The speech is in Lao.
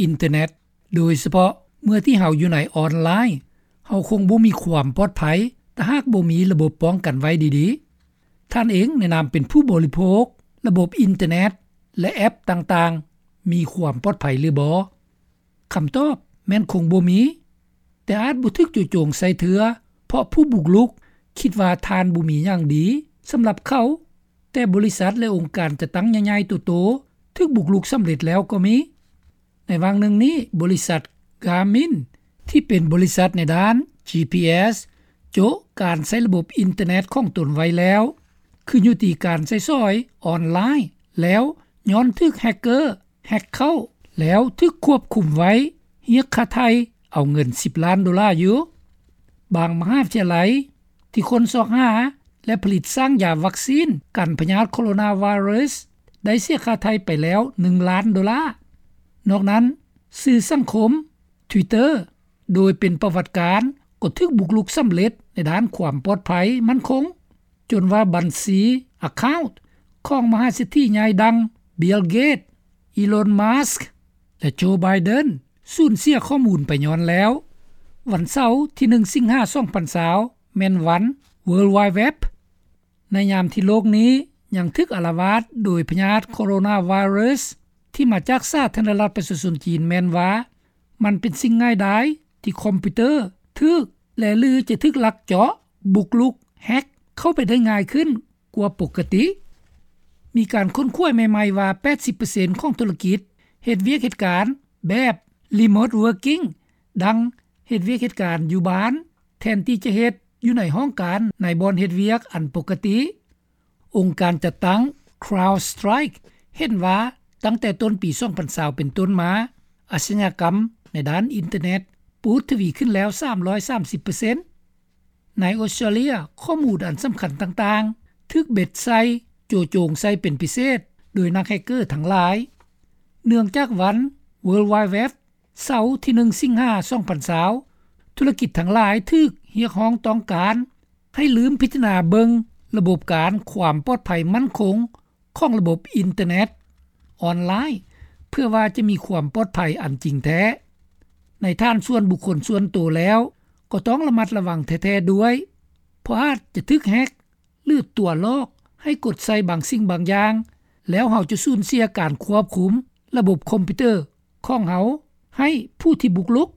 ອິນເຕີເນັດ, ໂດຍສະເພາະເມື່ອທີ່ເຮົາຢູ່ໃນອອນລາຍ, ເຮົາຄົງບໍ່ມີຄວາມປອດໄພ ຖ້າຫາກບໍ່ມີລະບົບປ້ອງກັນໄວ້ດີໆ. ທ່ານເອງໃນນາມເປັນຜູ້ບໍລິໂພກ, ລະບົບອິນເຕີເນັດ ແລະ ແອັບຕ່າງໆ ມີຄວາມປອດໄພຫຼືບໍ່? ຄຳຕອບແມ່ນຄົງບໍ່ມີ, ແຕ່ອາດບໍ່ຖືກຈູ່ໂຈງໃສ່ເທື່ອ ເພາະຜູ້ບຸກລຸກຄິດວ່າທ່ານບໍ່ມີຫຍັງດີສຳລັບເຂົາ, ແຕ່ບໍລິສັດ ແລະ ອົງການຈັດຕັ້ງໃຫຍ່ໆໂຕໆ ຖືກບຸກລຸກສຳເລັດແລ້ວກໍມີ. ໃນຫວ່າງໜຶ່ງນີ້, ບໍລິສັດ Garmin ທີ່ເປັນບໍລິສັດໃນດ້ານ ຈີພີເອສ ໂຈະການໃຊ້ລະບົບອິນເຕີເນັດຂອງຕົນໄວ້ແລ້ວ, ຂຶ້ນຢູ່ທີ່ການໃຊ້ສອຍອອນລາຍ, ແລ້ວຍ້ອນຖືກແຮັກເກີແຮັກເຂົ້າ, ແລ້ວຖືກຄວບຄຸມໄວ້, ຮຽກຄ່າໄຖ່ເອົາເງິນສິບລ້ານໂດລາຢູ່. ບາງມະຫາວິທະຍາໄລທີ່ຄົ້ນຊອກຫາ ແລະ ຜະລິດສ້າງຢາວັກຊີນກັນພະຍາດໂຄໂຣນາໄວຣັສ ໄດ້ເສຍຄ່າໄຖ່ໄປແລ້ວໜຶ່ງລ້ານໂດລາ. ນອກນັ້ນ, ສື່ສັງຄົມ Twitter ໂດຍເປັນປະຫວັດການ ກໍຖືກບຸກລຸກສຳເລັດໃນດ້ານຄວາມປອດໄພໝັ້ນຄົງ, ຈົນວ່າບັນຊີ account ຂອງມະຫາເສດຖີໃຫຍ່ດັ່ງ Bill Gates, Elon Musk ແລະ Joe Biden ສູນເສຍຂໍ້ມູນໄປຍ້ອນແລ້ວ. ວັນເສົາທີໜຶ່ງ ສິງຫາ ສອງພັນຊາວ ແມ່ນວັນ World Wide Web. ໃນຍາມທີ່ໂລກນີ້ຍັງຖືກອາລະວາດໂດຍພະຍາດໂຄໂຣນາໄວຣັສທີ່ມາຈາກສາທາລະນະລັດປະຊາຊົນຈີນ ແມ່ນວ່າມັນເປັນສິ່ງງ່າຍດາຍທີ່ຄອມພິວເຕີຖືກ ແລະ ຫຼື ຈະຖືກລັກເຈາະ, ບຸກລຸກ, ແຮັກເຂົ້າໄປໄດ້ງ່າຍຂຶ້ນກວ່າປົກກະຕິ. ມີການຄົ້ນຄວ້າໃໝ່ໆວ່າ ແປດສິບເປີເຊັນຂອງທຸລະກິດເຮັດວຽກເຮັດການແບບ remote working ດັ່ງເຮັດວຽກເຮັດການຢູ່ບ້ານ ແທນທີ່ຈະເຮັດຢູ່ໃນຫ້ອງການໃນບ່ອນເຮັດວຽກອັນປົກກະຕິ. ອົງການຈັດຕັ້ງ CrowdStrike ເຫັນວ່າຕັ້ງແຕ່ຕົ້ນປີສອງພັນຊາວເປັນຕົ້ນມາ, ອາຊະຍາກຳໃນດ້ານອິນເຕີເນັດປູດທະວີຂຶ້ນແລ້ວສາມຮ້ອຍສາມສິບເປີເຊັນ. ໃນອົດສະຕຣາເລຍ, ຂໍ້ມູນອັນສຳຄັນຕ່າງໆຖືກເບັດໃສ່, ໂຈະໂຈງໃສ່ເປັນພິເສດໂດຍນັກແຮັກເກີທັງຫຼາຍ. ເນື່ອງຈາກວັນ World Wide Web ເສົາທີໜຶ່ງ ສິງຫາ ສອງພັນຊາວ, ທຸລະກິດທັງຫຼາຍຖືກຮຽກຮ້ອງຕ້ອງການໃຫ້ລືມພິຈາລະນາເບິ່ງລະບົບການຄວາມປອດໄພໝັ້ນຄົງຂອງລະບົບອິນເຕີເນັດອອນລາຍ ເພື່ອວ່າຈະມີຄວາມປອດໄພອັນຈິງແທ້. ໃນຖານສ່ວນບຸກຄົນສ່ວນໂຕແລ້ວ ກໍຕ້ອງລະມັດລະວັງແທ້ໆດ້ວຍ, ເພາະອາດຈະຖືກແຮັກ ຫຼື ຕົວະຫຼອກໃຫ້ກົດໃສ່ບາງສິ່ງບາງຢ່າງ, ແລ້ວເຮົາຈະສູນເສຍການຄວບຄຸມລະບົບຄອມພິວເຕີຂອງເຮົາໃຫ້ຜູ້ທີ່ບຸກລຸກ